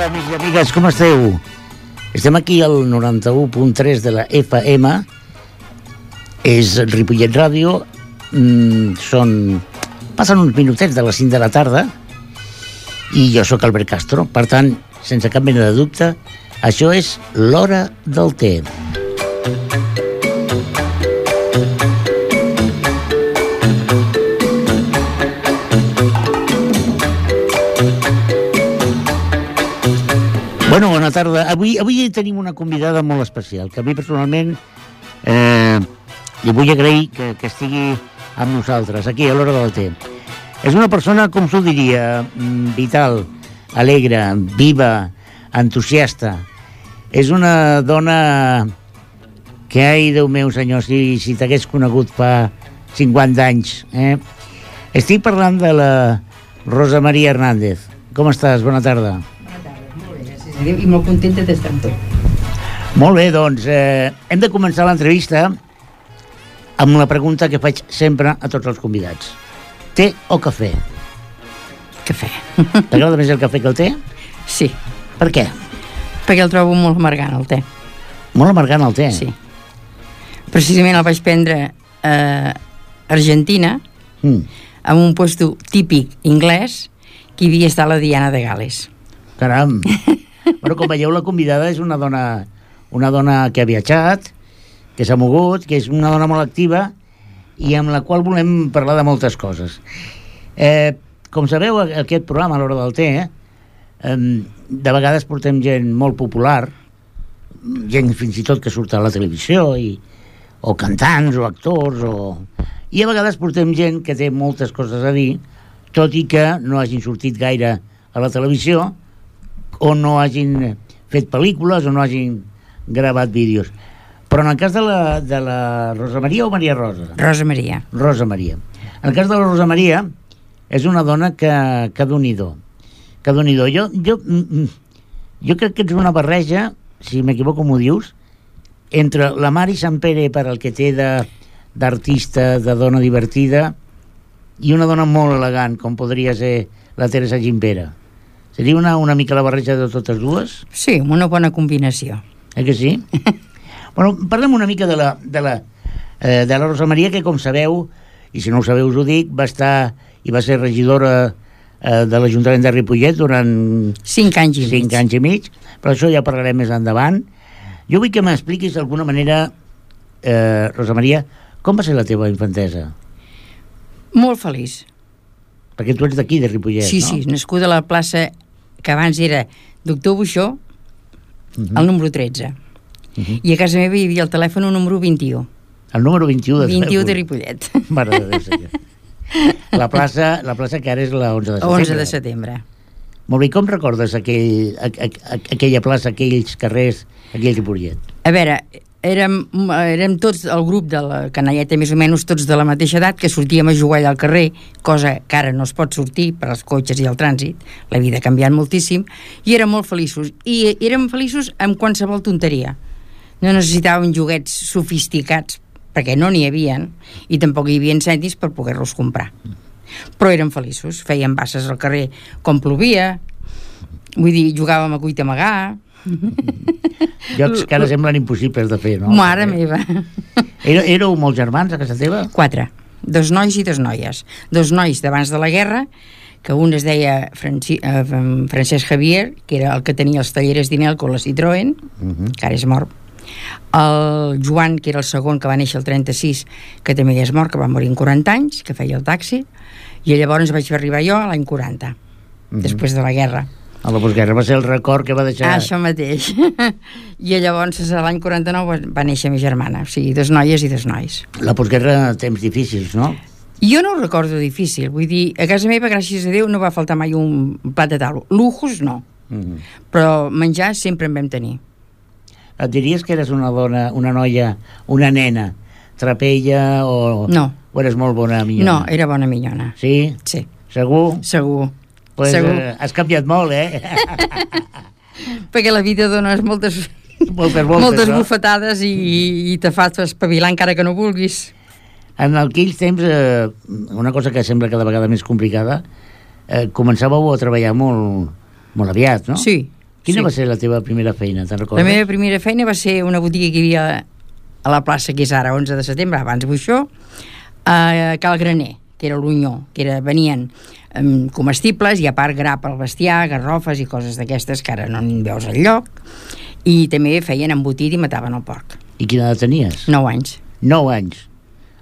amics i amigues, com esteu? Estem aquí al 91.3 de la FM. És Ripollet Ràdio. Passen uns minutets de les 5 de la tarda i jo sóc Albert Castro. Per tant, sense cap mena de dubte, això és l'Hora del Té. Bueno, bona tarda. Avui tenim una convidada molt especial, que a mi personalment li vull agrair que estigui amb nosaltres, aquí a l'Hora del Té. És una persona, com s'ho diria, vital, alegre, viva, entusiasta. És una dona que, ai, Déu meu, senyor, si t'hagués conegut fa 50 anys. Estic parlant de la Rosa Maria Hernández. Com estàs? Bona tarda. I molt contenta d'estar amb tu. Molt bé, doncs hem de començar l'entrevista amb la pregunta que faig sempre a tots els convidats. Té o cafè? Cafè. T'agrada més el cafè que el té? Sí. Per què? Perquè el trobo molt amargant, el té. Molt amargant el té? Sí. Precisament el vaig prendre a Argentina, en un puesto típic anglès, que hi havia estat la Diana de Gal·les. Caram! Bueno, com veieu, la convidada és una dona que ha viatjat, que s'ha mogut, que és una dona molt activa i amb la qual volem parlar de moltes coses. Com sabeu, aquest programa, a l'Hora del Té, de vegades portem gent molt popular, gent fins i tot que surt a la televisió, o cantants, o actors, i a vegades portem gent que té moltes coses a dir, tot i que no hagin sortit gaire a la televisió, o no hagin fet pel·lícules, o no hagin gravat vídeos. Però en el cas de la Rosa Maria o Maria Rosa? Rosa Maria. Rosa Maria. En el cas de la Rosa Maria, és una dona que Déu-n'hi-do. Que Déu-n'hi-do. Jo crec que és una barreja, si m'equivoco m'ho dius, entre la Mari Sampere, per al que té d'artista, de dona divertida, i una dona molt elegant, com podria ser la Teresa Gimpera. Seria una mica la barreja de totes dues? Sí, una bona combinació. Que sí? Bueno, parlem una mica de la Rosa Maria, que, com sabeu, i si no ho sabeu us ho dic, va estar i va ser regidora de l'Ajuntament de Ripollet durant 5 anys i mig, però això ja parlarem més endavant. Jo vull que m'expliquis d'alguna manera, Rosa Maria, com va ser la teva infantesa? Molt feliç. Perquè tu ets d'aquí, de Ripollet, sí, no? Sí, nascuda a la plaça que abans era Doctor Buixó, el número 13. I a casa meva hi havia el telèfon número 21. El número 21 de 21 de Ripollet. Mare de Déu, senyor. La plaça que ara és la 11 de setembre. 11 de setembre. Molt bé, com recordes aquella plaça, aquells carrers, aquell Ripollet? A veure, érem tots el grup de la canalleta, més o menys tots de la mateixa edat, que sortíem a jugar allà al carrer, cosa que ara no es pot sortir per als cotxes i el trànsit. La vida ha canviat moltíssim, i érem molt feliços. I érem feliços amb qualsevol tonteria. No necessitàvem joguets sofisticats, perquè no n'hi havien, i tampoc hi havia cèntims per poder-los comprar. Però érem feliços, fèiem basses al carrer com plovia, vull dir, jugàvem a cuita amagar. Jocs que ara semblen impossibles de fer, no? Mare meva. Éreu molts germans a casa teva? 4, 2 nois i 2 noies. 2 nois d'abans de la guerra, que un es deia Francesc Javier, que era el que tenia els talleres d'Inelco, la Citroën, que ara és mort. El Joan, que era el segon, que va néixer el 36, que també ja és mort, que va morir en 40 anys, que feia el taxi, i llavors vaig arribar jo a l'any 40, després de la guerra. A la postguerra va ser el record que va deixar... Això mateix. I llavors l'any 49 va néixer mi germana, o sigui, 2 noies i 2 nois. La postguerra, temps difícils, no? Jo no ho recordo difícil, vull dir, a casa meva, gràcies a Déu, no va faltar mai un plat de taula. Lujos, no. Però menjar sempre en vam tenir. Et diries que eres una dona, una noia, una nena, trapella o... No. O eres molt bona minyona? No, era bona minyona. Sí? Sí. Segur? Segur. Pues, segur. Has canviat molt, Perquè la vida dona moltes no? bufetades i te fa espavilar encara que no vulguis. En aquells temps, una cosa que sembla cada vegada més complicada, començàveu a treballar molt aviat, no? Sí. Quina va ser la teva primera feina, te'n recordes? La meva primera feina va ser una botiga que hi havia a la plaça que és ara 11 de setembre, abans Buixó, a Cal Graner, que era l'Unyó, venien comestibles i a part gra pel bestiar, garrofes i coses d'aquestes que ara no en veus enlloc, i també feien embotit i mataven el porc. I quina edat tenies? 9 anys. 9 anys.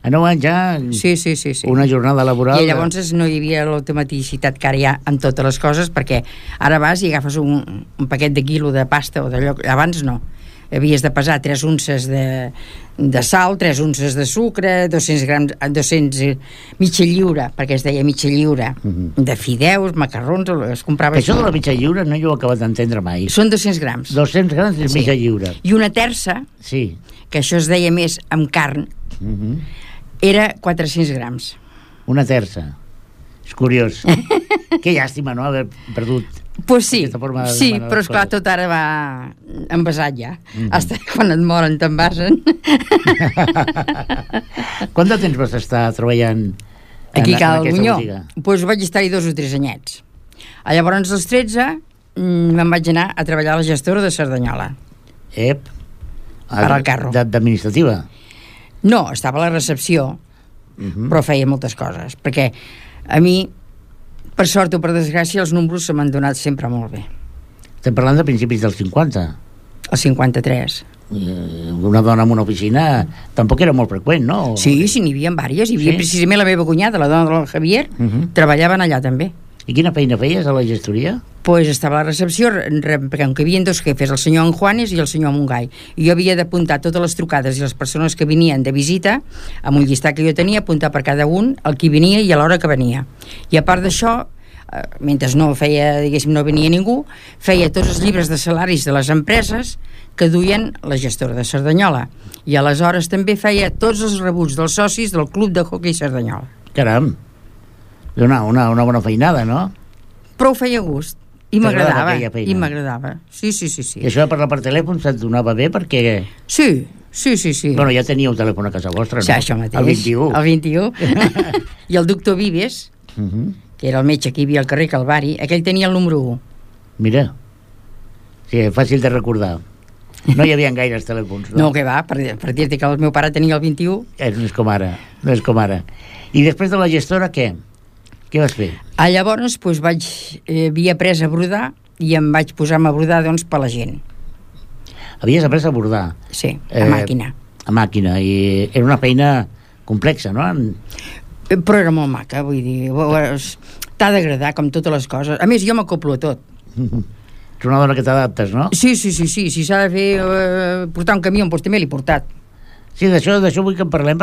A 9 anys ja... Sí. Una jornada laboral... I llavors no hi havia l'automaticitat que ara hi ha en totes les coses, perquè ara vas i agafes un paquet de quilo de pasta o d'allò... Abans no. Havies de pesar 3 unces de sal, 3 unces de sucre, 200 grams, mitja lliura, perquè es deia mitja lliura, de fideus, macarrons, es comprava... Això de la mitja lliura no jo ho he acabat d'entendre mai. Són 200 grams. 200 grams és mitja lliura. I una terça, que això es deia més amb carn, era 400 grams. Una terça. És curiós. Que llàstima, no?, haver perdut... Pues sí, però esclar, tot ara va envasat ja. Hasta quan et moren t'envasen. Quant de temps vas estar treballant aquí a Cal Bunyó? Pues vaig estar-hi 2 o 3 anyets. Llavors, als 13, me'n vaig anar a treballar a la gestora de Cerdanyola. Per al carro. D'administrativa? No, estava a la recepció, però feia moltes coses, perquè a mi, per sort o per desgràcia, els números se m'han donat sempre molt bé. Estem parlant de principis dels 50? El 53. Una dona en una oficina tampoc era molt freqüent, no? Sí, n'hi havia diverses. Hi havia precisament la meva cunyada, la dona del Javier, treballaven allà també. I quina feina feies a la gestoria? Pues estava a la recepció, perquè hi havia 2 jefes, el senyor Juanes i el senyor Montgai. I jo havia d'apuntar totes les trucades i les persones que venien de visita, amb un llistat que jo tenia, apuntar per cada un el qui venia i a l'hora que venia. I a part d'això, mentre no feia, diguéssim, no venia ningú, feia tots els llibres de salaris de les empreses que duien la gestora de Cerdanyola. I aleshores també feia tots els rebuts dels socis del Club de Hockey Cerdanyola. Caram! Una bona feinada, no? Però ho feia a gust. I m'agradava. Sí. I això de parlar per telèfon se't donava bé perquè... Sí. Bueno, ja teníeu telèfon a casa vostra, no? Sí, això mateix. El 21. I el doctor Vives, que era el metge que hi havia al carrer Calvari, aquell tenia el número 1. Mira. Sí, fàcil de recordar. No hi havia gaires telèfons, no? No, que va, per dir-te que el meu pare tenia el 21. No és com ara. I després de la gestora, què? Què vas fer? Llavors, havia après a brodar i em vaig posar-me a brodar, per la gent. Havies après a brodar? Sí, a màquina. A màquina, i era una feina complexa, no? Però era molt maca, vull dir, t'ha d'agradar com totes les coses. A més, jo m'acoplo a tot. Ets una dona que t'adaptes, no? Sí, si s'ha de fer portar un camió, doncs també l'he portat. Sí, d'això vull que en parlem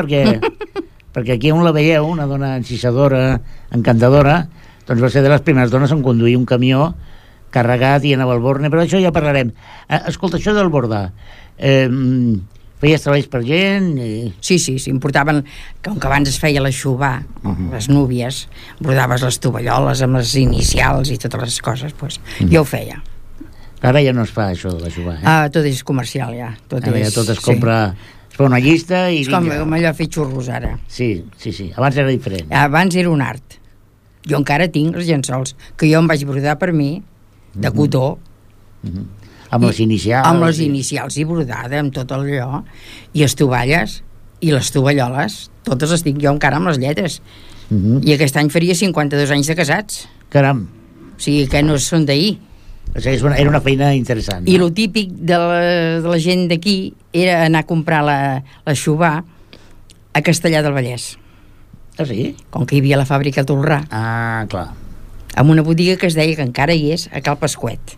perquè aquí on la veieu, una dona encisadora, encantadora, doncs va ser de les primeres dones en conduir un camió carregat i anava al Borne, però això ja parlarem. Escolta, això del bordar, feies treballs per gent? Sí, em portaven, com que abans es feia l'aixuvar, les núvies, bordaves les tovalloles amb les inicials i totes les coses, jo ho feia. Ara ja no es fa això de l'aixuvar, tot és comercial, ja. Tot es compra... Es fa una llista i... És com allò fer xurros ara. Sí. Abans era diferent. Abans era un art. Jo encara tinc els llençols, que jo em vaig brodar per mi, de cotó. Amb les inicials. Amb les inicials i brodada, amb tot allò. I les tovalles i les tovalloles, totes les tinc jo encara amb les lletres. I aquest any faria 52 anys de casats. Caram. O sigui que no són d'ahir. O sigui, era una feina interessant. I el típic de la gent d'aquí era anar a comprar l'aixuvar a Castellar del Vallès. Ah, sí? Com que hi havia la fàbrica a Tolrà. Ah, clar. Amb una botiga que es deia, que encara hi és, a Cal Pasquet.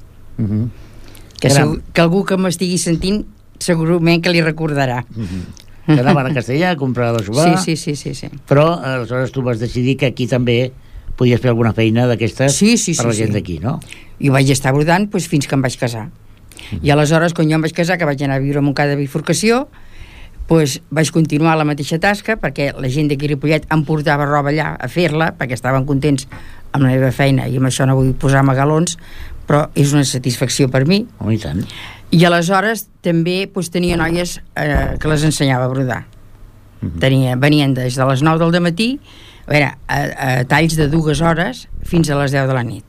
Que algú que m'estigui sentint segurament que li recordarà. Que anaven a Castellar a comprar l'aixuvar. Sí. Però aleshores tu vas decidir que aquí també podies fer alguna feina d'aquestes per la gent d'aquí, no? I vaig estar brodant fins que em vaig casar. I aleshores, quan jo em vaig casar, que vaig anar a viure a Montcada de Bifurcació, vaig continuar la mateixa tasca, perquè la gent d'aquí a Ripollet em portava roba allà a fer-la, perquè estaven contents amb la meva feina, i amb això no vull posar-me galons, però és una satisfacció per mi. I tant. I aleshores també tenia noies que les ensenyava a brodar. Venien des de les 9 del dematí a talls de 2 hores fins a les 10 de la nit.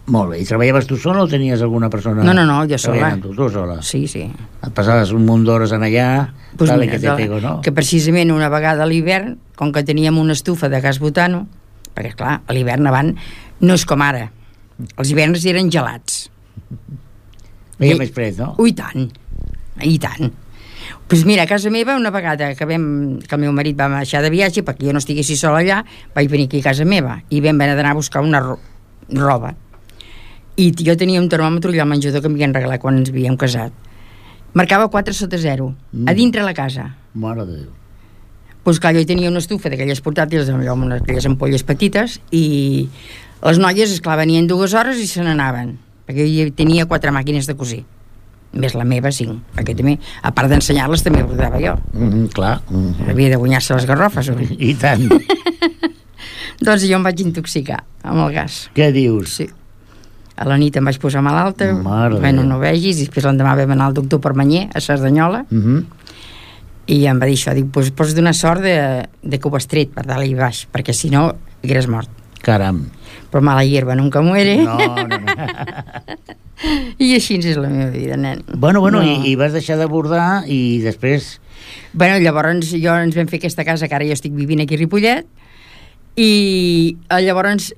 Molt bé. I treballaves tu sola o tenies alguna persona? No, jo sola. Tu sola? Sí. Et passaves un munt d'hores en allà, Pues tal, mira, que te pego, no? Que precisament una vegada a l'hivern, com que teníem una estufa de gas butano, perquè clar, a l'hivern abans no és com ara. Els hiverns eren gelats. Veia més fred, no? I tant. Doncs mira, a casa meva, una vegada que el meu marit va marxar de viatge, perquè jo no estiguessi sola allà, vaig venir aquí a casa meva i vam anar a buscar una roba. I jo tenia un termòmetre allà al menjador que m'havien regalat quan ens havíem casat. Marcava 4/0, a dintre la casa. Mare de Déu. Doncs clar, jo tenia una estufa d'aquelles portàtils amb aquelles ampolles petites i les noies, esclar, venien 2 hores i se n'anaven, perquè jo tenia 4 màquines de cosir, més la meva 5, perquè també, a part d'ensenyar-les, també bordava jo. Clar. Havia de guanyar-se les garrofes, oi? I tant. Doncs jo em vaig intoxicar amb el gas. Què dius? Sí. A la nit em vaig posar malalta, Mare no vegis, i després l'endemà vam anar al doctor Permanyer, a Cerdanyola, i em va dir això, dic, doncs pots donar sort de que ho has tret per dalt i baix, perquè si no, hagués mort. Caram. Però mala hierba nunca muere. No. I així és la meva vida, nen. Bueno, i vas deixar de bordar i després... Bueno, llavors ens vam fer aquesta casa, que ara jo estic vivint aquí a Ripollet, i llavors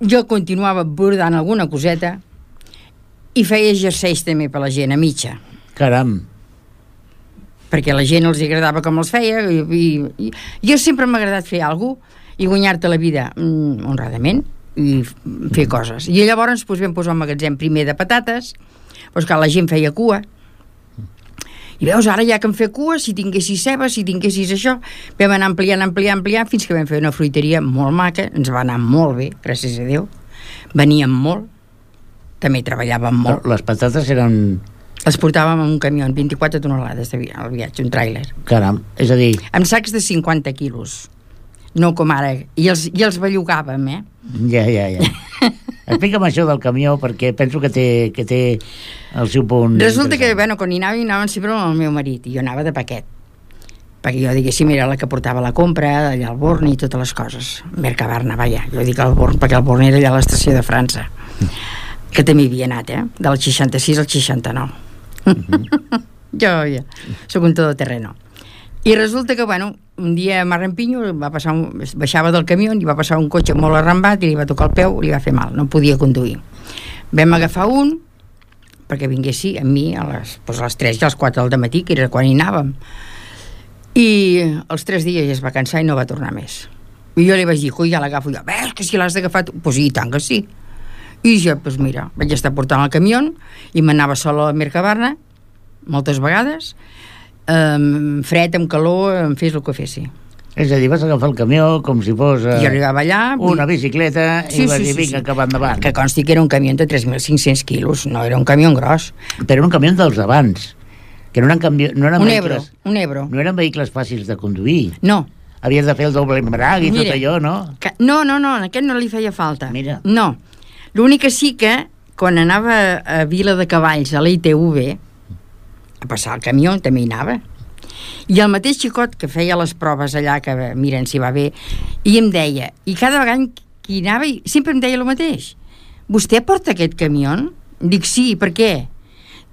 jo continuava bordant alguna coseta i feia jerseis també per la gent, a mitja. Caram. Perquè a la gent els agradava com els feia i jo sempre m'ha agradat fer alguna cosa i guanyar-te la vida honradament i fer coses. I llavors vam posar un magatzem primer de patates, doncs que la gent feia cua. I veus, ara ja que em fer cua, si tinguessis ceba, si tinguessis això, vam anar ampliant, fins que vam fer una fruiteria molt maca, ens va anar molt bé, gràcies a Déu. Veníem molt, també treballàvem molt. Les patates eren... Les portàvem en un camió, 24 tonelades al viatge, un tràiler. Caram, és a dir... Amb sacs de 50 quilos. No com ara. I els bellugàvem, eh? Ja. Explica'm això del camió, perquè penso que té el seu punt... Resulta que, quan hi anàvem sempre amb el meu marit, i jo anava de paquet. Perquè jo, diguéssim, era la que portava la compra, allà al Born i totes les coses. Mercabarna, vaja. Jo dic al Born, perquè el Born era allà a l'estació de França. Que també hi havia anat, del 66 al 69. Jo soc un todoterreno. I resulta que, un dia a Marrampinyo baixava del camió i va passar un cotxe molt arrambat i li va tocar el peu, li va fer mal, no podia conduir. Vam agafar un perquè vinguessi amb mi a les 3 i a les 4 del matí, que era quan hi anàvem. I els 3 dies ja es va cansar i no va tornar més. I jo li vaig dir, ja l'agafo jo. Ves, que si l'has d'agafar tu? Pues i tant que sí. I jo, mira, vaig estar portant el camió i m'anava sola a la Mercabarna moltes vegades, fred, amb calor, em fes el que fessi. És a dir, vas agafar el camió com si fos I arribava allà, una bicicleta i vas dir, vinga, cap endavant. Que consti que era un camió de 3.500 quilos, no era un camió gros. Però era un camió dels abans, que no eren vehicles... Un Ebro. No eren vehicles fàcils de conduir. No. Havies de fer el doble embrag i tot allò, no? No, a aquest no li feia falta. Mira. No. L'únic que sí que, quan anava a Vila de Cavalls, a la ITV, a passar el camió, també hi anava. I el mateix xicot que feia les proves allà, que miren si va bé, i em deia, i cada vegada que hi anava, sempre em deia el mateix. Vostè porta aquest camió? Dic, sí, per què?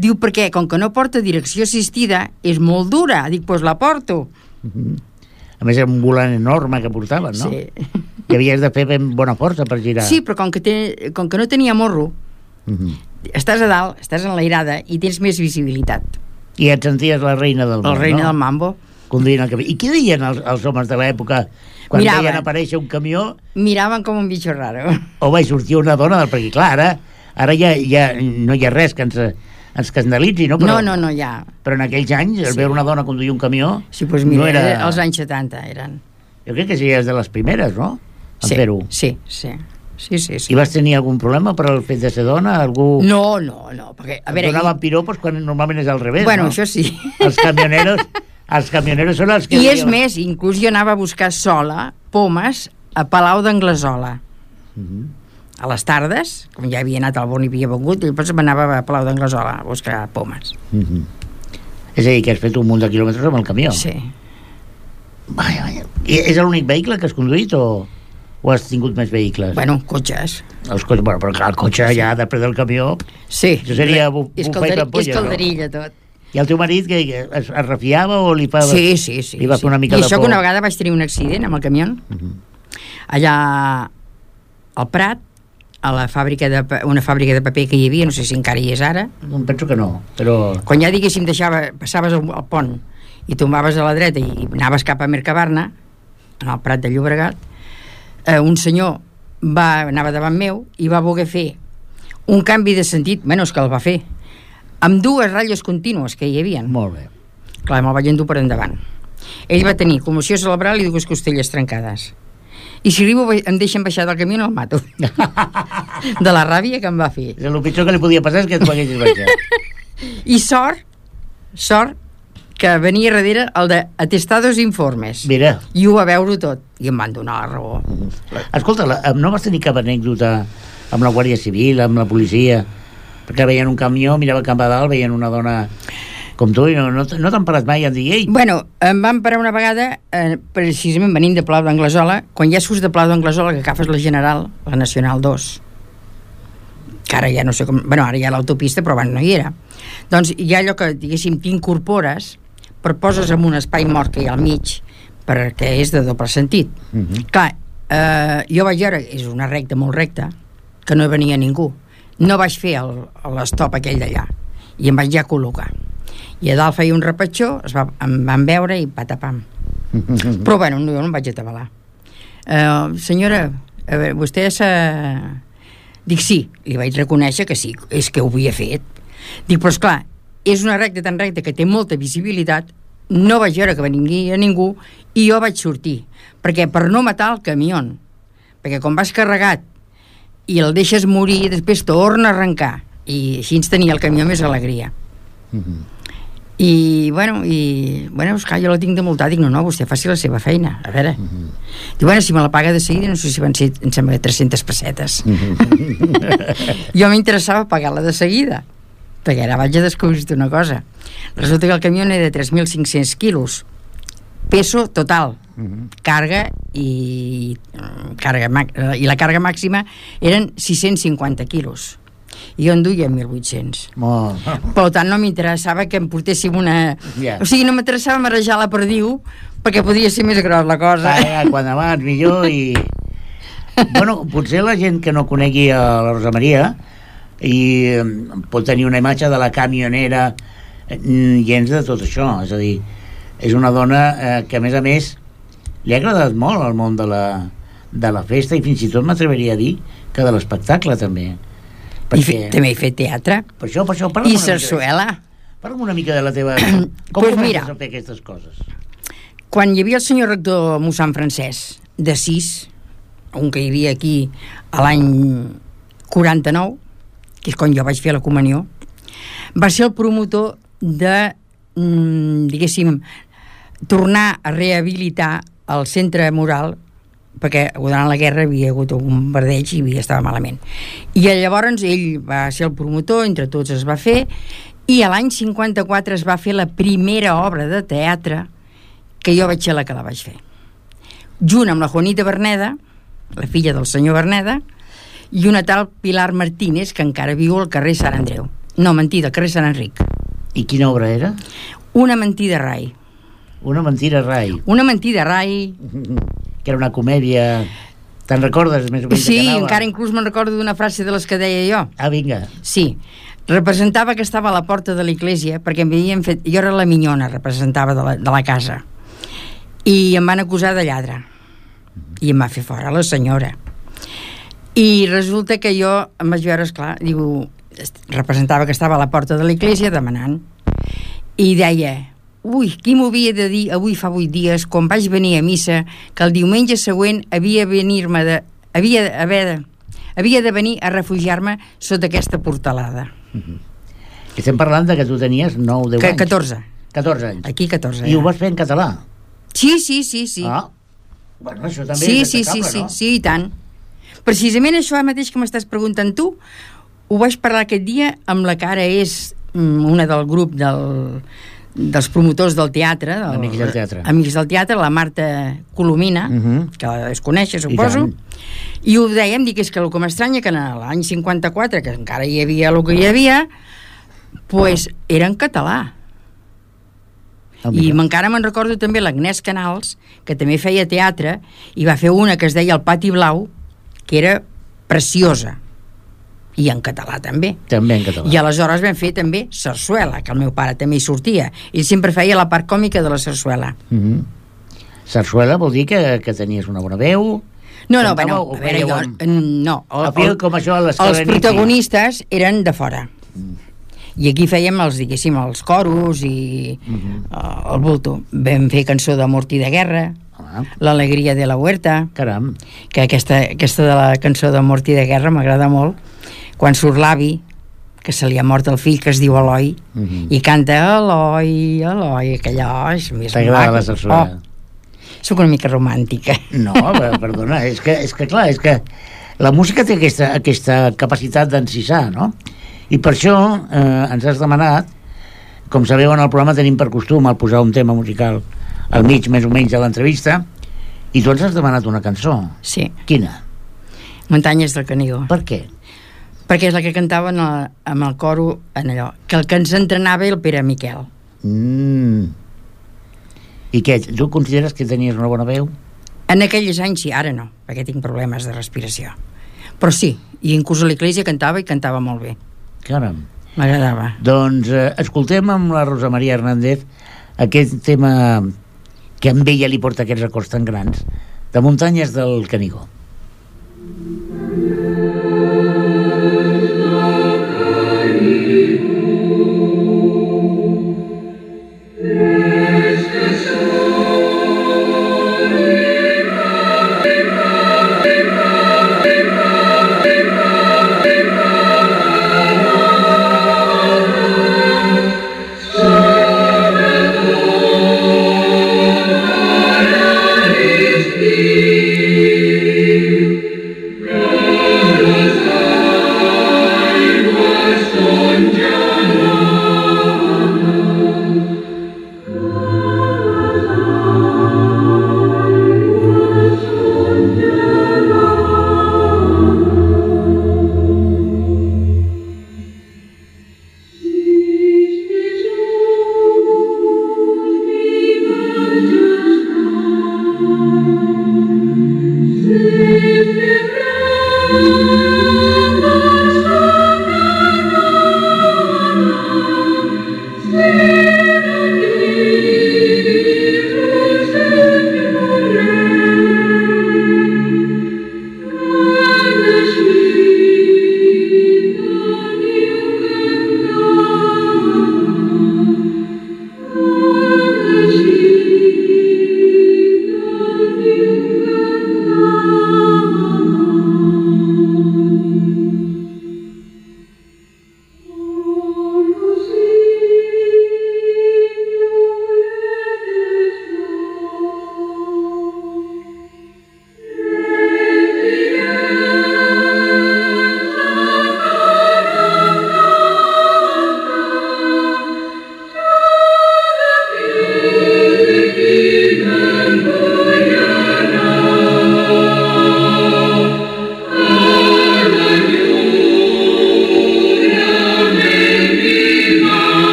Diu, perquè com que no porta direcció assistida, és molt dura. Dic, doncs la porto. A més, era un volant enorme que portaven, no? Sí. I havies de fer ben bona força per girar. Sí, però com que no tenia morro, estàs a dalt, estàs enlairada i tens més visibilitat. I et senties la reina del món, la reina del mambo. Conduint el camió. I què deien els homes de l'època quan veien aparèixer un camió? Miraven com un bitxo raro. O vaig sortir una dona, perquè clar, ara ja no hi ha res que ens escandalitzi, no? Però, no, ja. Però en aquells anys, veure una dona conduir un camió... Sí, doncs mira, no era... els anys 70 eren. Jo crec que sí, és de les primeres, no? En fer-ho. Sí. I vas tenir algun problema per el fet de ser dona? Algú... No, perquè... A veure, donaven piropos quan normalment és al revés, bueno, no? Això sí. Els camioneros són els que... I és més, inclús jo anava a buscar sola pomes a Palau d'Anglesola. A les tardes, com ja havia anat al Born i havia vengut, i després m'anava a Palau d'Anglesola a buscar pomes. És a dir, que has fet un munt de quilòmetres amb el camió. Sí. Vaja. I és l'únic vehicle que has conduït o o has tingut més vehicles? Bueno, cotxes. Els cotxes, bueno, però clar, el cotxe ja després del camió... Sí. Això seria és calderilla, tot. I el teu marit que es refiava o li fa... Sí. Li va fer una mica de por? I això que una vegada vaig tenir un accident amb el camió. Allà al Prat, a una fàbrica de paper que hi havia, no sé si encara hi és ara. Penso que no, però... Quan ja, diguéssim, passaves el pont i tombaves a la dreta i anaves cap a Mercabarna, en el Prat de Llobregat, un senyor anava davant meu i va voler fer un canvi de sentit, menys que el va fer, amb dues ratlles contínues que hi havia. Molt bé. Clar, me'l vaig endur per endavant. Ell va tenir commoció cerebral i dues costelles trencades. I si arribo em deixen baixar del camió el mato. De la ràbia que em va fer. El pitjor que li podia passar és que et poguessis baixar. I sort que venia darrere el de atestados informes. Mira. I ho va veure tot. I em van donar la raó. Escolta, no vas tenir cap anècdota amb la Guàrdia Civil, amb la policia? Perquè veien un camió, mirava cap a dalt, veien una dona com tu, i no t'han parat mai a dir, ei? Bueno, em van parar una vegada, precisament venint de Palau d'Anglesola, quan ja surts de Palau d'Anglesola, que agafes la General, la Nacional 2, que ara ja no sé com... Bueno, ara hi ha l'autopista, però abans no hi era. Doncs hi ha allò que, diguéssim, t'incorpores, però poses en un espai mort que hi ha al mig, perquè és de doble sentit. Clar, jo vaig veure, és una recta molt recta, que no venia ningú. No vaig fer l'estop aquell d'allà, i em vaig ja col·locar. I a dalt feia un repatxó, em van veure i patapam. Però bueno, no em vaig atabalar. Senyora, a veure, vostè s'ha... Dic, sí, li vaig reconèixer que sí, és que ho havia fet. Dic, però esclar, és una recta tan recta que té molta visibilitat, no vaig veure que venia ningú i jo vaig sortir, perquè per no matar el camió, perquè quan vas carregat i el deixes morir, després torna a arrencar, i així ens tenia el camió més alegria. I bueno, esclar, jo la tinc de multar. Dic, no, vostè faci la seva feina, a veure. Diu, bueno, si me la paga de seguida, no sé si van ser, em sembla, 300 pessetes. Jo m'interessava pagar-la de seguida, perquè ara vaig a descobrir una cosa. Resulta que el camió era de 3.500 quilos, peso total, càrrega i la càrrega màxima eren 650 quilos. I jo en duia 1.800. Per tant, no m'interessava que em portéssim una... O sigui, no m'interessava marejar la perdiu, perquè podia ser més gros la cosa. Quan abans, millor, i... Bueno, potser la gent que no conegui a la Rosa Maria i pot tenir una imatge de la camionera gens de tot això, és a dir, és una dona que a més li ha agradat molt el món de la festa, i fins i tot m'atreveria a dir que de l'espectacle també, perquè... També he fet teatre. Per això i sarsuela. Parla'm una mica de la teva... Com pues comences a fer aquestes coses? Quan hi havia el senyor rector mossèn Francesc de 6, un que hi havia aquí a l'any 49, que és quan jo vaig fer la comunió, va ser el promotor de, diguéssim, tornar a rehabilitar el centre moral, perquè durant la guerra havia hagut un bombardeig i estava malament. I llavors ell va ser el promotor, entre tots es va fer, i a l'any 54 es va fer la primera obra de teatre que jo vaig ser la que la vaig fer. Junt amb la Juanita Berneda, la filla del senyor Berneda, i una tal Pilar Martínez, que encara viu al carrer Sant Andreu. No, mentida, al carrer Sant Enric. I quina obra era? Una mentida rai. Una mentida rai. Una mentida rai. Que era una comèdia... Te'n recordes més o menys? Sí, encara inclús me'n recordo d'una frase de les que deia jo. Ah, vinga. Sí, representava que estava a la porta de l'església, perquè em havien fet... Jo era la minyona, representava de la casa. I em van acusar de lladre. I em va fer fora la senyora. I resulta que jo em vaig veure, esclar, diu, representava que estava a la porta de l'església demanant. I deia... Ui, qui m'ho havia de dir avui fa 8 dies, quan vaig venir a missa, que el diumenge següent havia de venir a refugiar-me sota aquesta portalada. Estem parlant de que tu tenies 9 o 10 anys. 14. 14 anys. Aquí 14. I ho vas fer en català? Sí. Ah, bueno, això també és destacable, no? Sí, i tant. Precisament això mateix que m'estàs preguntant tu, ho vaig parlar aquest dia amb la que ara és una del grup dels promotors del teatre, Amics del teatre. Amics del teatre, la Marta Colomina, que la es conèixer, suposo, i ho dèiem, dic, és que el que m'estranya que en l'any 54, que encara hi havia el que hi havia, pues era en català. I encara me'n recordo també l'Agnès Canals, que també feia teatre, i va fer una que es deia El Pati Blau, que era preciosa, i en català també. També en català. I aleshores vam fer també sarsuela, que el meu pare també hi sortia. Ell sempre feia la part còmica de la sarsuela. Sarsuela vol dir que tenies una bona veu? No, bueno, a veure, no. Com això, els protagonistes eren de fora. I aquí fèiem diguéssim, els coros i el bulto. Vam fer cançó de Mort i de Guerra, L'alegria de la Huerta. Caram. Que aquesta de la cançó de Mort i de Guerra m'agrada molt, quan surt l'avi, que se li ha mort el fill, que es diu Eloi, i canta Eloi, Eloi, aquella... T'agrada la sarsuela? Soc una mica romàntica. No, perdona, és que clar, és que la música té aquesta capacitat d'encisar, no? I per això ens has demanat, com sabeu, en el programa tenim per costum el posar un tema musical al mig, més o menys, de l'entrevista, i tu ens has demanat una cançó. Sí. Quina? Muntanyes del Canigó. Per què? Perquè és la que cantaven amb el coro en allò, que el que ens entrenava el Pere Miquel. I què, tu consideres que tenies una bona veu? En aquells anys sí, ara no, perquè tinc problemes de respiració. Però sí, i inclús a l'església cantava i cantava molt bé. Caram. M'agradava. Doncs escoltem amb la Rosa Maria Hernández aquest tema que amb ella li porta aquests records tan grans, de Muntanyes del Canigó.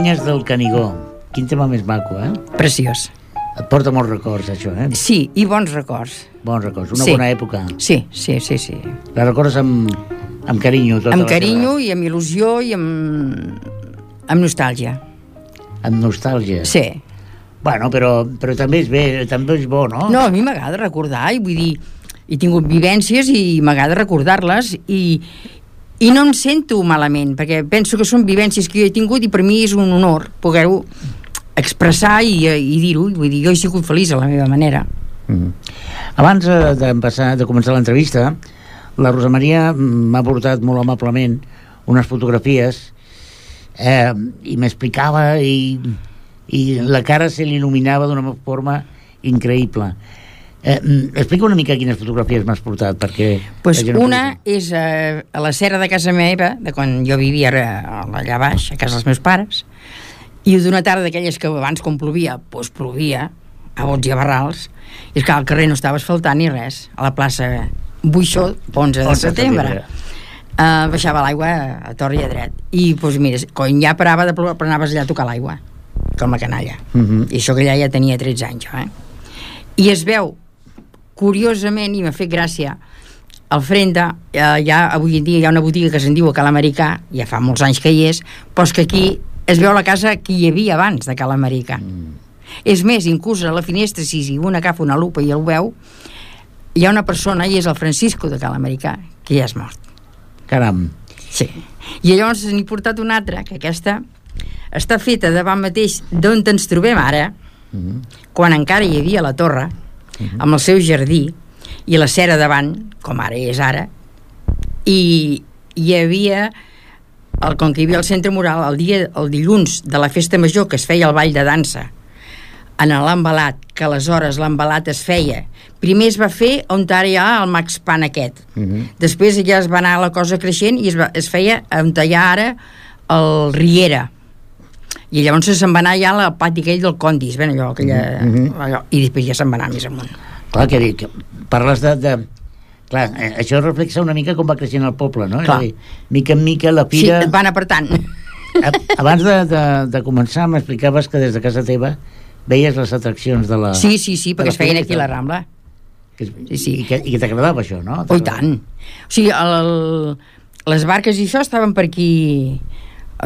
Canyes del Canigó. Quin tema més maco, eh? Preciós. Et porta molts records, això, eh? Sí, i bons records. Bons records, una bona època. Sí. La recordes amb carinyo? Amb carinyo i amb il·lusió i amb nostàlgia. Amb nostàlgia? Sí. Bueno, però també és bé, també és bo, no? No, a mi m'agrada recordar, i vull dir, he tingut vivències i m'agrada recordar-les i no em sento malament, perquè penso que són vivències que jo he tingut i per mi és un honor poder-ho expressar i dir-ho. Vull dir, jo he sigut feliç a la meva manera. Abans de començar l'entrevista, la Rosa Maria m'ha portat molt amablement unes fotografies i m'explicava i la cara se l'il·luminava d'una forma increïble. Explica una mica quines fotografies m'has portat, perquè... Pues una és a la serra de casa meva, de quan jo vivia allà baix, a casa dels meus pares, i d'una tarda d'aquelles que abans, quan plovia, doncs plovia a bots i a barrals, i és que al carrer no estava asfaltant ni res, a la plaça Buixó, 11 de setembre. Baixava l'aigua a tor i a dret, i doncs mira, quan ja parava de ploure, però anaves allà a tocar l'aigua, com la canalla. I això que ja tenia 13 anys, I es veu, curiosament, i m'ha fet gràcia, al Frenda, avui en dia hi ha una botiga que se'n diu a Cal Americà, ja fa molts anys que hi és, però és que aquí es veu la casa que hi havia abans de Cal Americà. És més, inclús a la finestra, si un agafa una lupa i el veu, hi ha una persona, i és el Francisco de Cal Americà, que ja és mort. Caram. Sí. I llavors n'he portat una altra, que aquesta està feta davant mateix d'on ens trobem ara, quan encara hi havia la torre, amb el seu jardí, i la cera davant, com ara és ara, i hi havia... com que hi havia el centre mural, el dilluns de la festa major, que es feia el ball de dansa en l'embalat, que aleshores l'embalat es feia, primer es va fer on ara hi ha el Max Pan aquest, després ja es va anar la cosa creixent i es feia on hi ha ara el Riera, i llavors se'n va anar ja al pati aquell del Condis, allò, i després ja se'n va anar més amunt. Clar, que parles de clar, això reflexa una mica com va creixent el poble, no? Clar. És a dir, mica en mica la fira... Sí, et van apretant. Abans de començar m'explicaves que des de casa teva veies les atraccions de la... Sí, perquè es feien aquí a la Rambla. Sí. I que t'agradava això, no? Oh, i tant. O sigui, les barques i això estaven per aquí,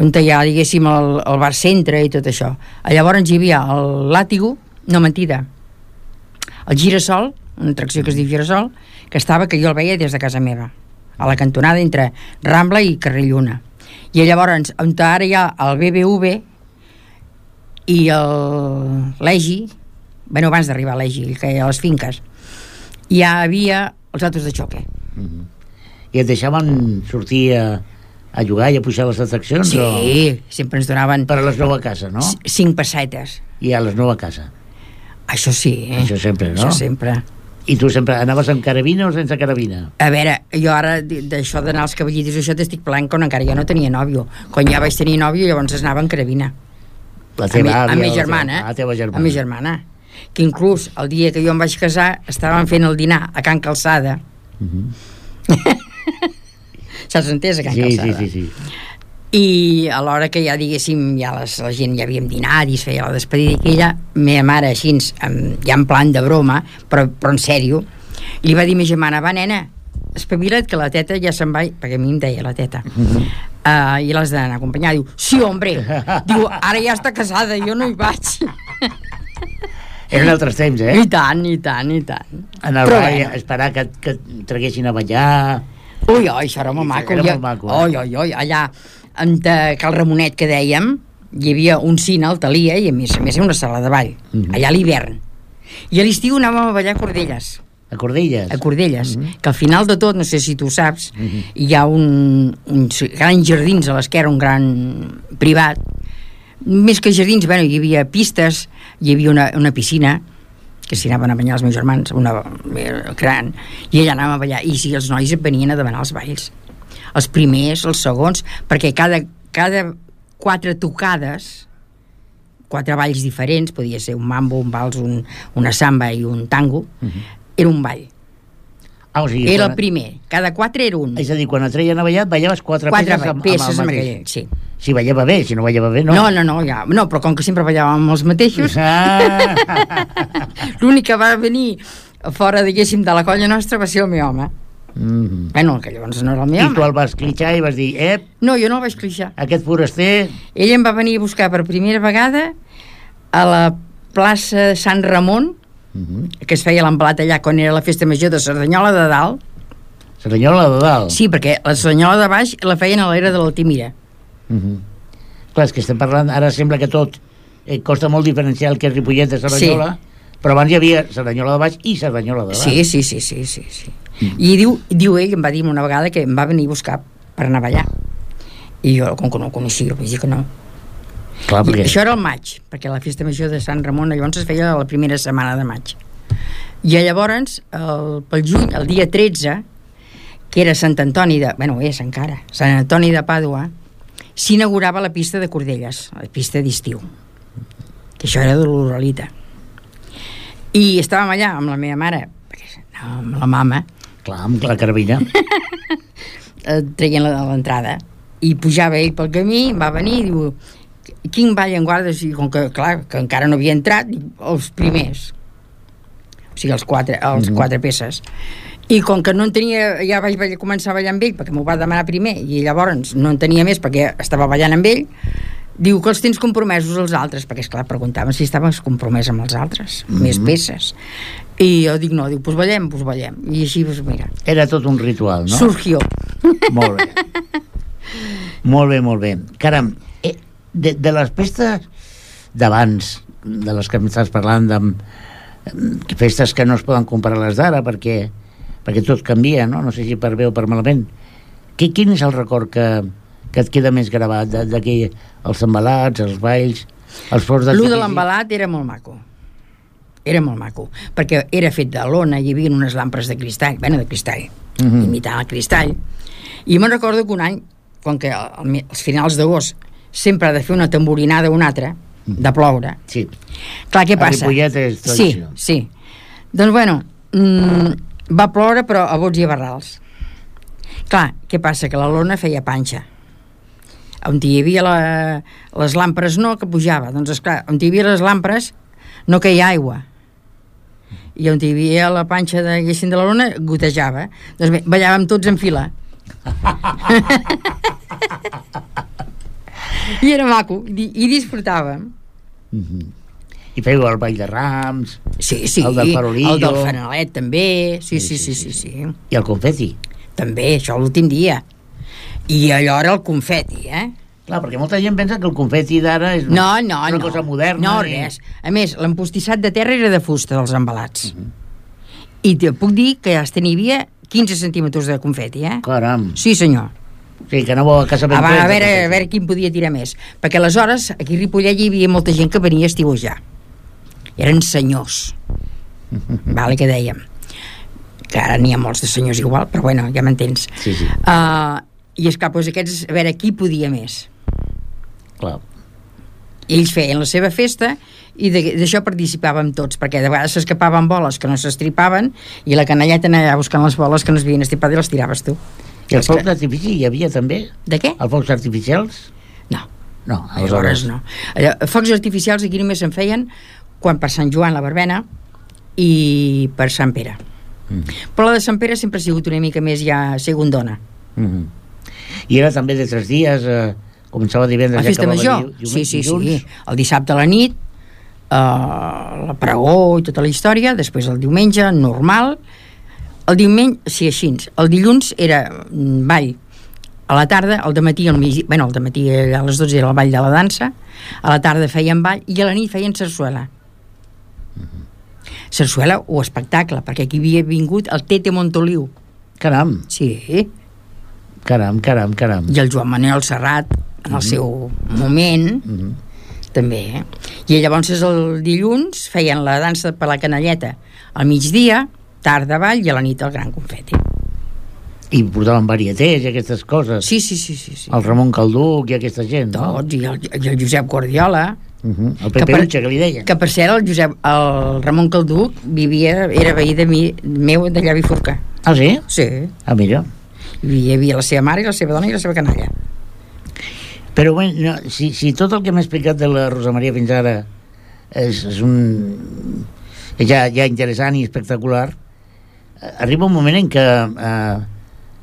on hi ha, diguéssim, el bar centre i tot això. Llavors hi havia el Làtigo, no, mentida, el Girasol, una atracció que es diu Girasol, que jo el veia des de casa meva, a la cantonada entre Rambla i Carrer Lluna. I llavors, on ara hi ha el BBV i l'Egi, abans d'arribar a l'Egi, que hi ha les finques, hi havia els autos de xoque. I et deixaven sortir a jugar i a pujar les atraccions? Sí, sempre ens donaven... Per a les 9 a casa, no? 5 pessetes. I a les 9 a casa. Això sí, Això sempre, no? Això sempre. I tu sempre anaves amb carabina o sense carabina? A veure, jo ara d'això d'anar als cavallitos això t'estic parlant quan encara jo no tenia nòvio. Quan ja vaig tenir nòvio llavors anava amb carabina. La teva àvia? A mi germana. La teva germana. A mi germana. Que inclús el dia que jo em vaig casar estàvem fent el dinar a Can Calçada. Saps entès, a Can Calçada? Sí. I a l'hora que ja diguéssim la gent ja havíem dinat i es feia la despedida, i ella, meva mare així ja en plan de broma però en sèrio, li va dir a ma germana, va nena, espavila't que la teta ja se'n va, perquè a mi em deia la teta, i l'has d'anar a acompanyar. Diu, sí hombre, diu, ara ja està casada, jo no hi vaig. Eren altres temps, I tant. Anar a esperar que traguessin a ballar. Ui, això era molt maco. Era molt maco. Allà en Cal Ramonet, que dèiem, hi havia un cine al Talia i a més una sala de ball, allà a l'hivern. I a l'estiu anàvem a ballar a Cordelles. A Cordelles? A Cordelles, que al final de tot, no sé si tu saps, hi ha uns grans jardins a l'esquerra, un gran privat. Més que jardins, hi havia pistes, hi havia una piscina, que s'hi anaven a banyar els meus germans, una gran, i allà anàvem a ballar. I si els nois et venien a demanar els balls. Els primers, els segons, perquè cada 4 tocades, 4 balls diferents, podia ser un mambo, un vals, una samba i un tango, era un ball. O sigui, era el primer, cada 4 era un. És a dir, quan et treien a ballar, ballaves 4 peces amb el mateix. Sí. Si ballava bé, si no ballava bé, no. No, però com que sempre ballàvem els mateixos, l'únic que va venir fora, diguéssim, de la colla nostra va ser el meu home. Bueno, que llavors no era el meu home. I tu el vas clitxar i vas dir, no, jo no el vaig clitxar. Aquest foraster... Ell em va venir a buscar per primera vegada a la plaça de Sant Ramon, que es feia l'embalat allà quan era la festa major de Cerdanyola de Dalt. Cerdanyola de Dalt? Sí, perquè la Cerdanyola de Baix la feien a l'era de l'Altimira. Clar, és que estem parlant, ara sembla que tot costa molt diferenciar el que és Ripollet de Cerdanyola, però abans hi havia Cerdanyola de Baix i Cerdanyola de Dalt. Sí. I diu ell, em va dir una vegada que em va venir a buscar per anar a ballar. I jo, com que no el coneixia, vaig dir que no. Clar, perquè... Això era el maig, perquè la festa major de Sant Ramon llavors es feia la primera setmana de maig. I llavors, pel juny, el dia 13, que era Sant Antoni de... Bueno, és encara. Sant Antoni de Pàdua, s'inaugurava la pista de Cordelles, la pista d'estiu. Que això era de l'Uralita. I estàvem allà amb la meva mare, amb la mama... Clar, amb la carabina. Traient l'entrada. I pujava ell pel camí, va venir i diu... Quin ball en guardes? I com que, clar, que encara no havia entrat, els primers. O sigui, els quatre peces. I com que no en tenia, ja vaig començar a ballar amb ell, perquè m'ho va demanar primer, i llavors no en tenia més perquè estava ballant amb ell, diu que els tens compromesos els altres, perquè esclar, preguntaven si estaves compromès amb els altres, més peces. I jo dic, no, diu, doncs ballem. I així, doncs mira. Era tot un ritual, no? Surgió. Molt bé. Molt bé. Caram, de les festes d'abans, de les que m'estàs parlant, de festes que no es poden comparar les d'ara, perquè tot canvia, no? No sé si per bé o per malament. Quin és el record que et queda més gravat d'aquí, els embalats, els balls, els forts d'artifici? Lo de l'embalat era molt maco, perquè era fet de lona, hi havia unes lampres de cristall, imitant el cristall, i me'n recordo que un any, com que als finals d'agost sempre ha de fer una tamborinada o una altra, de ploure. Sí. Clar, què passa? A Ripollet és tradició. Sí. Doncs bueno, va ploure però a bots i a barrals. Clar, què passa? Que la lona feia panxa. On hi havia les làmpres no, que pujava. Doncs esclar, on hi havia les làmpres no queia aigua. I on hi havia la panxa de la lona gotejava. Doncs bé, ballàvem tots en fila. I era maco, i disfrutàvem. I fèieu el ball de Rams, sí, el del farolillo, el del fanalet també, sí. I el confeti també, això l'últim dia. I allò era el confeti, Clar, perquè molta gent pensa que el confeti d'ara és una cosa moderna. No, res. A més, l'empostissat de terra era de fusta dels embalats. I te puc dir que hasta n'hi havia 15 centímetres de confeti, Caram. Sí, senyor. Sí, que anava a casa ben a veure quin podia tirar més. Perquè aleshores, aquí a Ripollet hi havia molta gent que venia a estiuejar. Eren senyors. Vale, que dèiem. Que ara n'hi ha molts de senyors igual, però bueno, ja m'entens. Sí. I esclar, doncs aquests, a veure, qui podia més? Clar. Ells feien la seva festa i d'això participàvem tots, perquè de vegades s'escapaven boles que no s'estripaven i la canalleta anava buscant les boles que no s'havien estripat i les tiraves tu. I els focs d'artifici hi havia també? De què? Els focs artificials? No, aleshores no. Focs artificials aquí només se'n feien quan per Sant Joan la verbena i per Sant Pere. Però la de Sant Pere sempre ha sigut una mica més ja segundona. I era també de 3 dies, començava divendres la festa major? Sí. El dissabte a la nit, la pregó i tota la història, després el diumenge normal. El diumenge, sí, així. El dilluns era ball a la tarda, al dematí, al dematí a les 12 era el ball de la dansa, a la tarda feien ball i a la nit feien sarsuela. Sarsuela o espectacle, perquè aquí havia vingut el Tete Montoliu. Caram. Sí. Caram. I el Joan Manuel Serrat, en el seu moment, també. I llavors el dilluns feien la dansa per la canalleta al migdia, tarda ball i a la nit el gran confeti. I portaven varietés i aquestes coses. Sí. El Ramon Calduc i aquesta gent, no? Tots, i el Josep Guardiola. El Peperucha, que li deien. Que per cert, el Ramon Calduc era veí meu d'allà a Bifurca. Ah, sí? Sí. Ah, mira. Hi havia la seva mare i la seva dona i la seva canalla. Però bé, no, si tot el que m'ha explicat de la Rosa Maria fins ara és ja interessant i espectacular, arriba un moment en què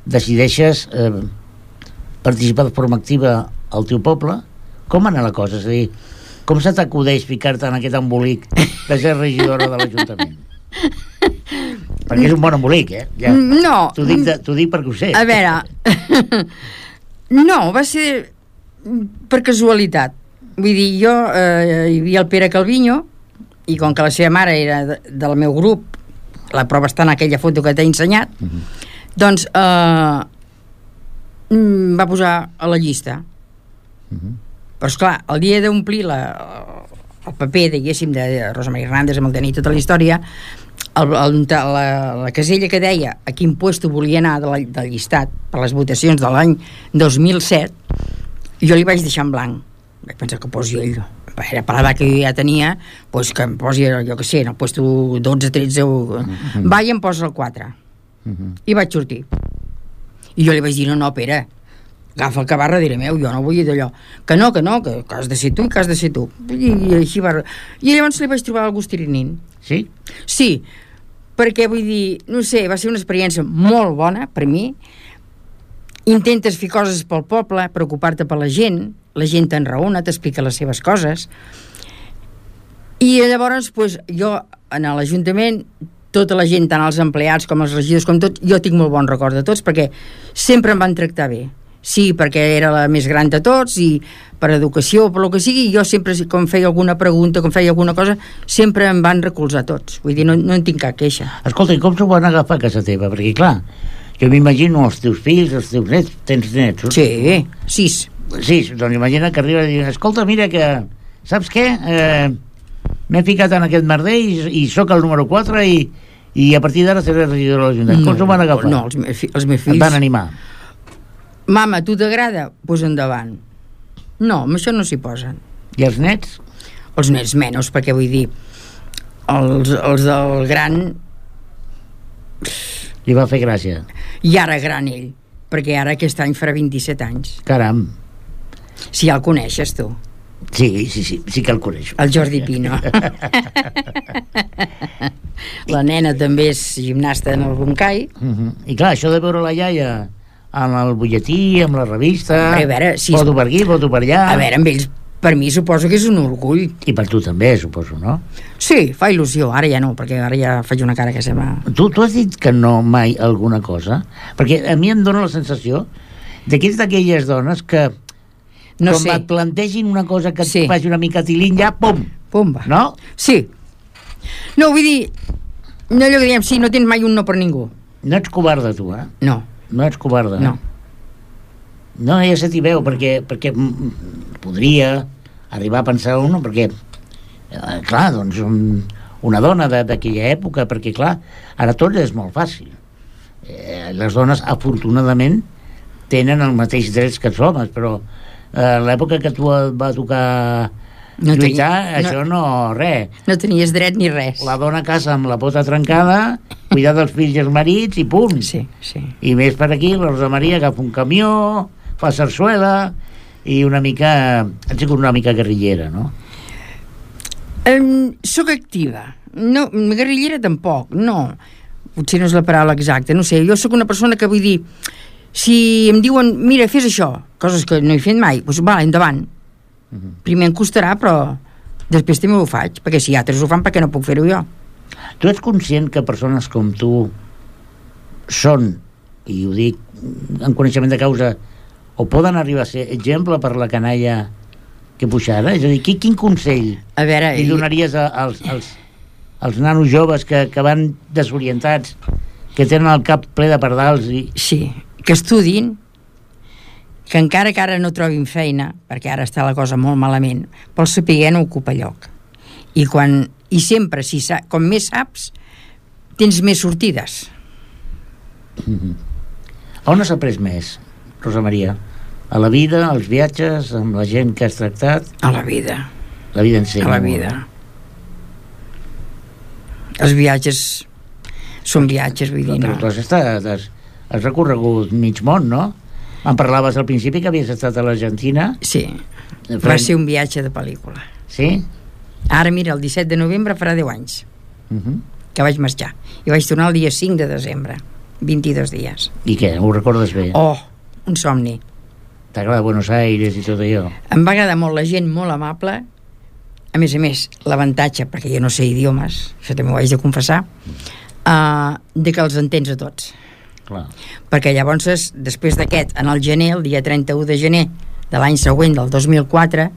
decideixes participar de forma activa al teu poble. Com anar la cosa? És a dir, com se t'acudeix ficar-te en aquest embolic de ser regidora de l'Ajuntament? Perquè és un bon embolic, ja. No. T'ho dic perquè ho sé. A veure, no, va ser per casualitat. Vull dir, jo hi havia el Pere Calviño, i com que la seva mare era del meu grup, la prova està en aquella foto que t'he ensenyat, doncs va posar a la llista. Però esclar, el dia d'omplir el paper, diguéssim, de Rosa Maria Hernández, amb el tenir tota la història, la casella que deia a quin puesto volia anar del llistat per les votacions de l'any 2007, jo li vaig deixar en blanc. Vaig pensar que posi ell, era per l'edat que jo ja tenia, doncs que em posi, jo que sé, en el puesto 12, 13 va i em posa el 4 i vaig sortir i jo li vaig dir, no, Pere, agafa el que va darrere meu, jo no vull d'allò, que has de ser tu i que has de ser tu, i així va. I llavors li vaig trobar el gust tirinint. Sí? Sí, perquè vull dir, no sé, va ser una experiència molt bona per mi. Intentes fer coses pel poble, preocupar-te per la gent t'enraona, t'explica les seves coses, i llavors pues, jo en l'Ajuntament, tota la gent, tant els empleats com els regidors com tot, jo tinc molt bon record de tots perquè sempre em van tractar bé. Sí, perquè era la més gran de tots i per educació o per el que sigui, jo sempre, com feia alguna pregunta, com feia alguna cosa, sempre em van recolzar tots. Vull dir, no en tinc cap queixa. Escolta, i com s'ho van agafar a casa teva? Perquè, clar, jo m'imagino els teus fills, els teus nets, tens nets? Sí, 6. Sí, doncs imagina que arriba i diu, escolta, mira que, saps què? M'he ficat en aquest merder i sóc el número 4 i a partir d'ara seré regidor de l'Ajuntament. Com s'ho van agafar? No, els meus fills... Et van animar? Mama, tu t'agrada? Pues endavant. No, amb això no s'hi posen. I els nets? Els nets menys, perquè vull dir, els del gran... Li va fer gràcia. I ara gran ell, perquè ara aquest any farà 27 anys. Caram. Si ja el coneixes, tu. Sí que el coneixo. El Jordi Pino. La nena també és gimnasta en el Boncai. I clar, això de veure la iaia amb el butlletí, amb la revista, a veure, foto per aquí, foto per allà... A veure, amb ells, per mi suposo que és un orgull. I per tu també, suposo, no? Sí, fa il·lusió, ara ja no, perquè ara ja faig una cara que sembla... Tu has dit que no mai alguna cosa? Perquè a mi em dóna la sensació que ets d'aquelles dones que no com sé. et plantegin una cosa que et faci una mica tilín, ja, pum! Pumba. No? Sí. No, vull dir, no allò que diem, sí, no tens mai un no per ningú. No ets covarda, tu, eh? No. No ets covarda. No. No, ja se t'hi veu, perquè podria arribar a pensar uno, perquè, clar, doncs, una dona d'aquella època, perquè, clar, ara tot és molt fàcil. Les dones, afortunadament, tenen els mateixos drets que els homes, però l'època que tu et va tocar lluitar, això no, res. No tenies dret ni res. La dona casa amb la pota trencada, cuidar dels fills i els marits i punt. Sí. I més per aquí, la Rosa Maria agafa un camió, fa sarsuela i una mica... Han sigut una mica guerrillera, no? Soc activa. No, guerrillera tampoc, no. Potser no és la paraula exacta, no sé. Jo sóc una persona que vull dir, si em diuen, mira, fes això, coses que no he fet mai, doncs va, endavant. Primer em costarà, però després també ho faig, perquè si altres ho fan, per què no puc fer-ho jo? Tu ets conscient que persones com tu són, i ho dic en coneixement de causa, o poden arribar a ser exemple per la canalla que puja ara? És a dir, quin consell li donaries als nanos joves que van desorientats, que tenen el cap ple de pardals? Sí, que estudin, que encara que ara no trobin feina, perquè ara està la cosa molt malament, però el saber no ocupa lloc. I sempre, com més saps, tens més sortides. On has après més, Rosa Maria? A la vida, als viatges, amb la gent que has tractat? A la vida. La vida en si. A la vida. Els viatges són viatges, vull dir, no. Has recorregut mig món, no? Em parlaves al principi que havies estat a l'Argentina. Sí, va ser un viatge de pel·lícula. Sí? Ara, mira, el 17 de novembre farà 10 anys que vaig marxar. I vaig tornar el dia 5 de desembre. 22 dies. I què? Ho recordes bé? Oh, un somni. T'agrada Buenos Aires i tot allò? Em va agradar molt la gent, molt amable. A més, l'avantatge, perquè jo no sé idiomes, això també ho haig de confessar, de que els entens a tots. Clar. Perquè llavors, després d'aquest, en el gener, el dia 31 de gener de l'any següent, del 2004,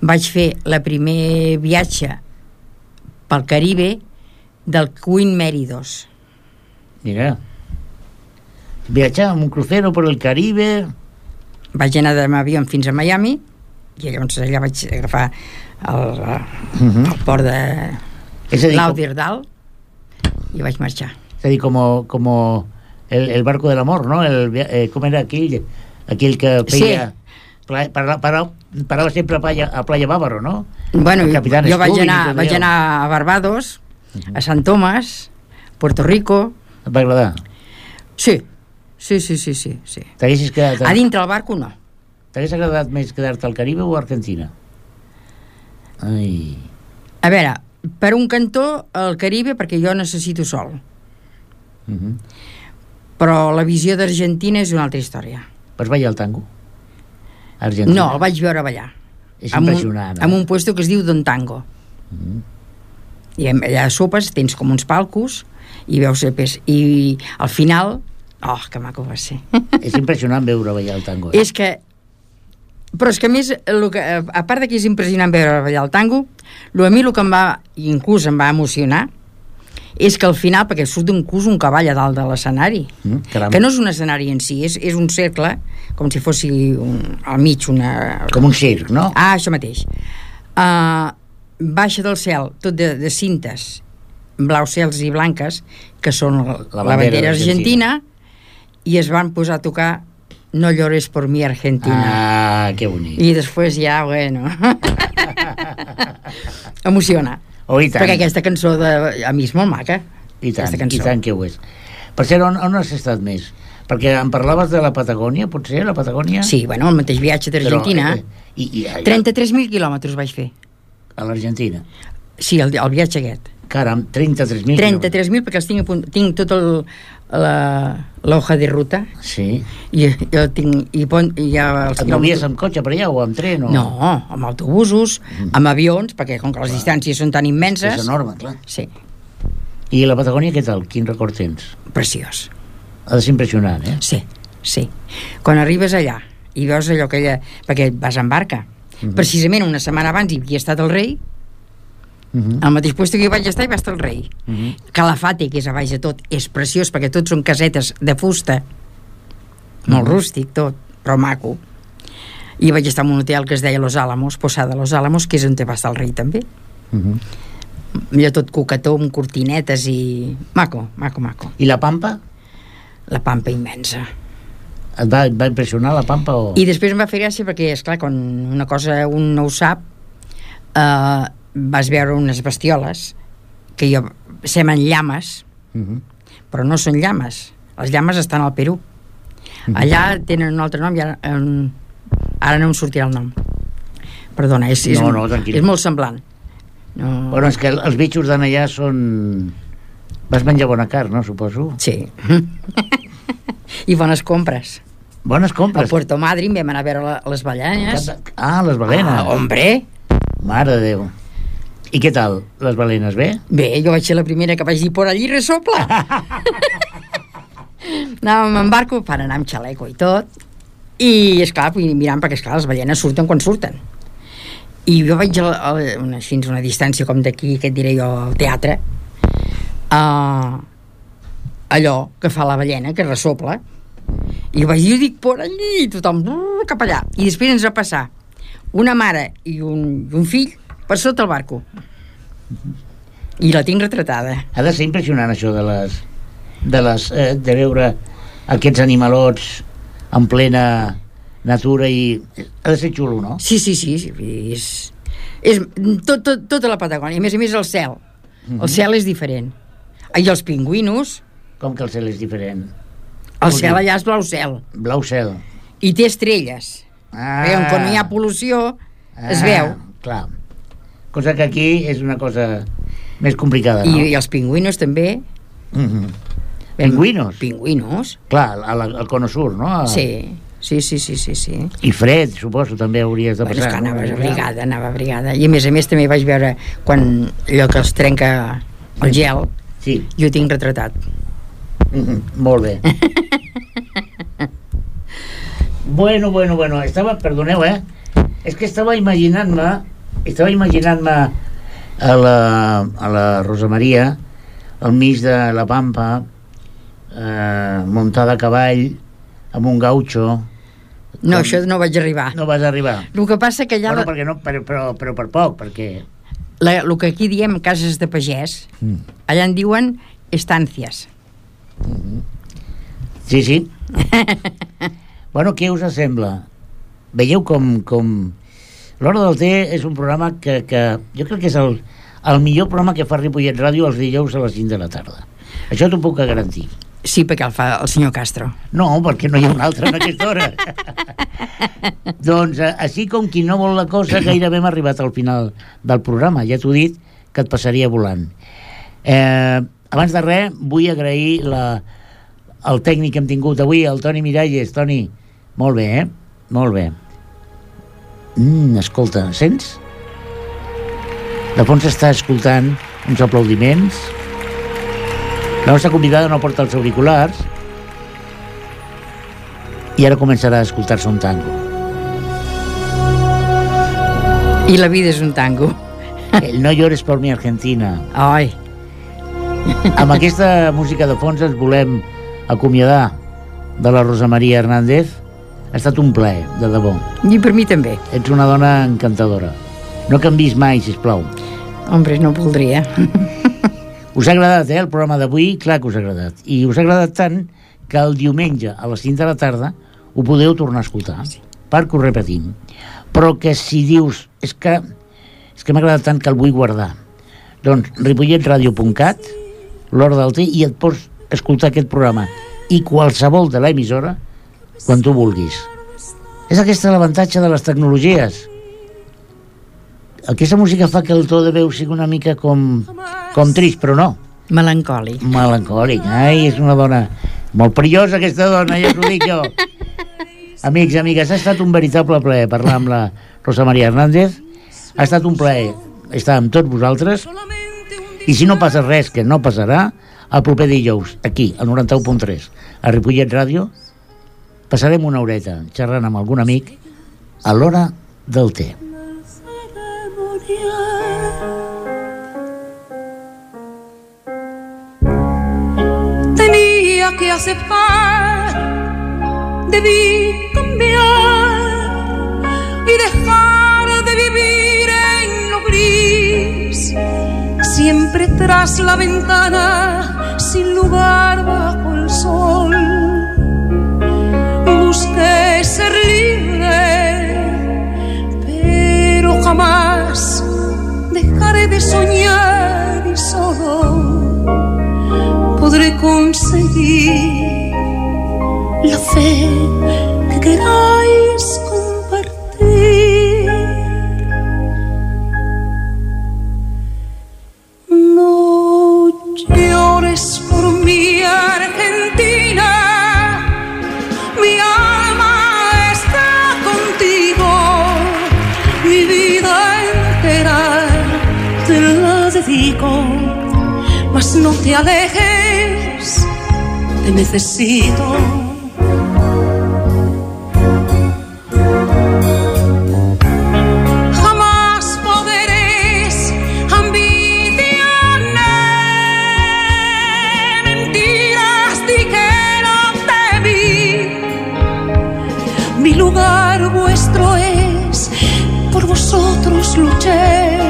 vaig fer la primer viatge pel Caribe del Queen Mary 2. Mira, viatjar amb un crucero per el Caribe. Vaig anar amb avió fins a Miami i llavors allà vaig agafar el port de Lauderdale i vaig marxar. És a dir, com el barco del amor, ¿no? Com era aquell que feia... Sí. Parava sempre a Playa Bávaro, ¿no? Bueno, jo vaig anar a Barbados, a Sant Tomàs, Puerto Rico. Et va agradar? Sí. T'haguessis quedat... A dintre el barco, no. T'hagués agradat més quedar-te al Caribe o a Argentina? Ai... A veure, per un cantó, el Caribe, perquè jo necessito sol. Però la visió d'Argentina és una altra història. Vas ballar el tango? Argentina? No, el vaig veure ballar. És impressionant. En un puesto que es diu Don Tango. I allà a sopes tens com uns palcos i veus i al final, oh, que maco va ser. És impressionant veure ballar el tango. Però és que a més, a part de que és impressionant veure ballar el tango, a mi el que inclús em va emocionar és que al final, perquè surt un cavall a dalt de l'escenari, que no és un escenari en si, és un cercle, com si fos al mig una... Com un circ, no? Ah, això mateix. Baixa del cel, tot de cintes, blaus cels i blanques, que són la bandera argentina, i es van posar a tocar No llores por mi Argentina. Ah, que bonic. I després ja, bueno... Emociona. Oh, i tant. Perquè aquesta cançó a mi és molt maca. I tant que ho és. Per cert, on has estat més? Perquè em parlaves de la Patagònia, potser, la Patagònia? Sí, bueno, el mateix viatge d'Argentina. 33.000 quilòmetres vaig fer. A l'Argentina? Sí, el viatge aquest. Caram, 33.000 quilòmetres. 33.000 perquè els tinc tot l'hoja de ruta. Sí. I jo tinc... Et movies amb cotxe per allà o amb tren? No, amb autobusos, amb avions, perquè com que les distàncies són tan immenses... És enorme, clar. Sí. I la Patagònia, què tal? Quin record tens? Preciós. Ha de ser impressionant, eh? Sí. Quan arribes allà i veus allò que perquè vas en barca. Precisament una setmana abans hi havia estat el rei, al mateix lloc que hi vaig estar hi va estar el rei. Calafate, que és a baix de tot, és preciós perquè tots són casetes de fusta, molt rústic tot, però maco. I vaig estar en un hotel que es deia Los Álamos, Posada Los Álamos, que és on va estar el rei també. Allò tot coquetó amb cortinetes i maco. I la Pampa? La Pampa immensa. Et va impressionar la Pampa? I després em va fer gràcia perquè, esclar, quan una cosa un no ho sap, vas veure unes bestioles que semblen llames, però no són llames. Les llames estan al Perú. Allà tenen un altre nom i ara no em sortirà el nom. Perdona, és molt semblant. Bueno, és que els bitxos d'allà són... Vas menjar bona carn, no, suposo? Sí. I bones compres. Bones compres? A Puerto Madryn vam anar a veure les balenes. Ah, les balenes. Ah, hombre! Mare de Déu. I què tal, les balenes, bé? Bé, jo vaig ser la primera que vaig dir por allí resopla. Anàvem en barco per anar amb xaleco i tot, i esclar, mirant, perquè esclar, les balenes surten quan surten. I jo vaig així una distància com d'aquí, que et diré jo, al teatre, allò que fa la ballena, que resopla, i vaig dir, dic, por allí, tothom cap allà. I després ens va passar una mare i un fill per sota el barco. I la tinc retratada. Ha de ser impressionant això de veure aquests animalots en plena natura i... Ha de ser xulo, no? Sí. És tota la Patagònia. A més el cel. El cel és diferent. I els pingüinos... Com que el cel és diferent? El cel allà és blau cel. Blau cel. I té estrelles. Quan no hi ha pol·lució, es veu. Clar. Cosa que aquí és una cosa més complicada, no? I els pingüinos també. Pingüinos? Pingüinos. Clar, al Cono Sur, no? Sí. I fred, suposo, també hauries de passar. Bueno, és que anava abrigada. I a més també vaig veure quan allò que els trenca el gel, sí. Jo ho tinc retratat. Molt bé. Bueno, perdoneu, és que estava imaginant-me a la Rosa Maria al mig de la pampa, muntada a cavall amb un gaucho. No, això no vaig arribar. No vas arribar. El que passa que allà... Bueno, perquè no, però per poc, perquè... El que aquí diem cases de pagès, allà en diuen estàncies. Sí. Bueno, què us sembla? Veieu com... L'Hora del Té és un programa que jo crec que és el millor programa que fa Ripollet Ràdio els dijous a les 5 de la tarda. Això t'ho puc garantir. Sí, perquè el fa el senyor Castro. No, perquè no hi ha un altre en aquesta hora. Doncs, així com qui no vol la cosa, gairebé hem arribat al final del programa. Ja t'ho he dit, que et passaria volant. Abans de res, vull agrair el tècnic que hem tingut avui, el Toni Miralles. Toni, molt bé, Molt bé. Escolta, sents? De fons està escoltant uns aplaudiments. La nostra convidada no porta els auriculars i ara començarà a escoltar-se un tango. I la vida és un tango. El No llores por mi Argentina. Ai. Amb aquesta música de fons ens volem acomiadar de la Rosa Maria Hernández. Ha estat un plaer, de debò. I per mi també. Ets una dona encantadora. No canvis mai, sisplau. Hombre, no voldria. Us ha agradat, el programa d'avui? Clar que us ha agradat. I us ha agradat tant que el diumenge a les 5 de la tarda ho podeu tornar a escoltar, perquè ho repetim. Però que si dius és que m'ha agradat tant que el vull guardar, doncs ripolletradio.cat, l'Hora del Té, i et pots escoltar aquest programa i qualsevol de l'emissora quan tu vulguis. És aquest l'avantatge de les tecnologies. Aquesta música fa que el to de veu sigui una mica com trist, però no. Melancòlic. Ai, és una dona molt perillosa, aquesta dona, ja t'ho dic jo. Amics, amigues, ha estat un veritable plaer parlar amb la Rosa Maria Hernández. Ha estat un plaer estar amb tots vosaltres. I si no passa res, que no passarà, el proper dijous, aquí, al 91.3, a Ripollet Ràdio, passarem una horeta xerrant amb algun amic a l'Hora del Té. Tenía que aceptar, debí cambiar y dejar de vivir en lo gris, siempre tras la ventana, sin lugar bajo el sol. Busqué ser libre, pero jamás dejaré de soñar y solo podré conseguir la fe que queráis compartir. No llores por mi Argentina, mi alma está contigo, mi vida entera te la dedico, mas no te alejes, te necesito. Jamás podréis ambicionar mentiras, di que no te vi. Mi lugar vuestro es, por vosotros luché.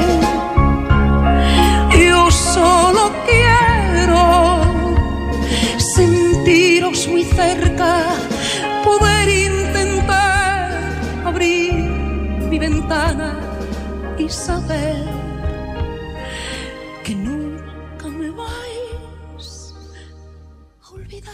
Yo solo quiero sentiros muy cerca, poder intentar abrir mi ventana y saber que nunca me vais a olvidar.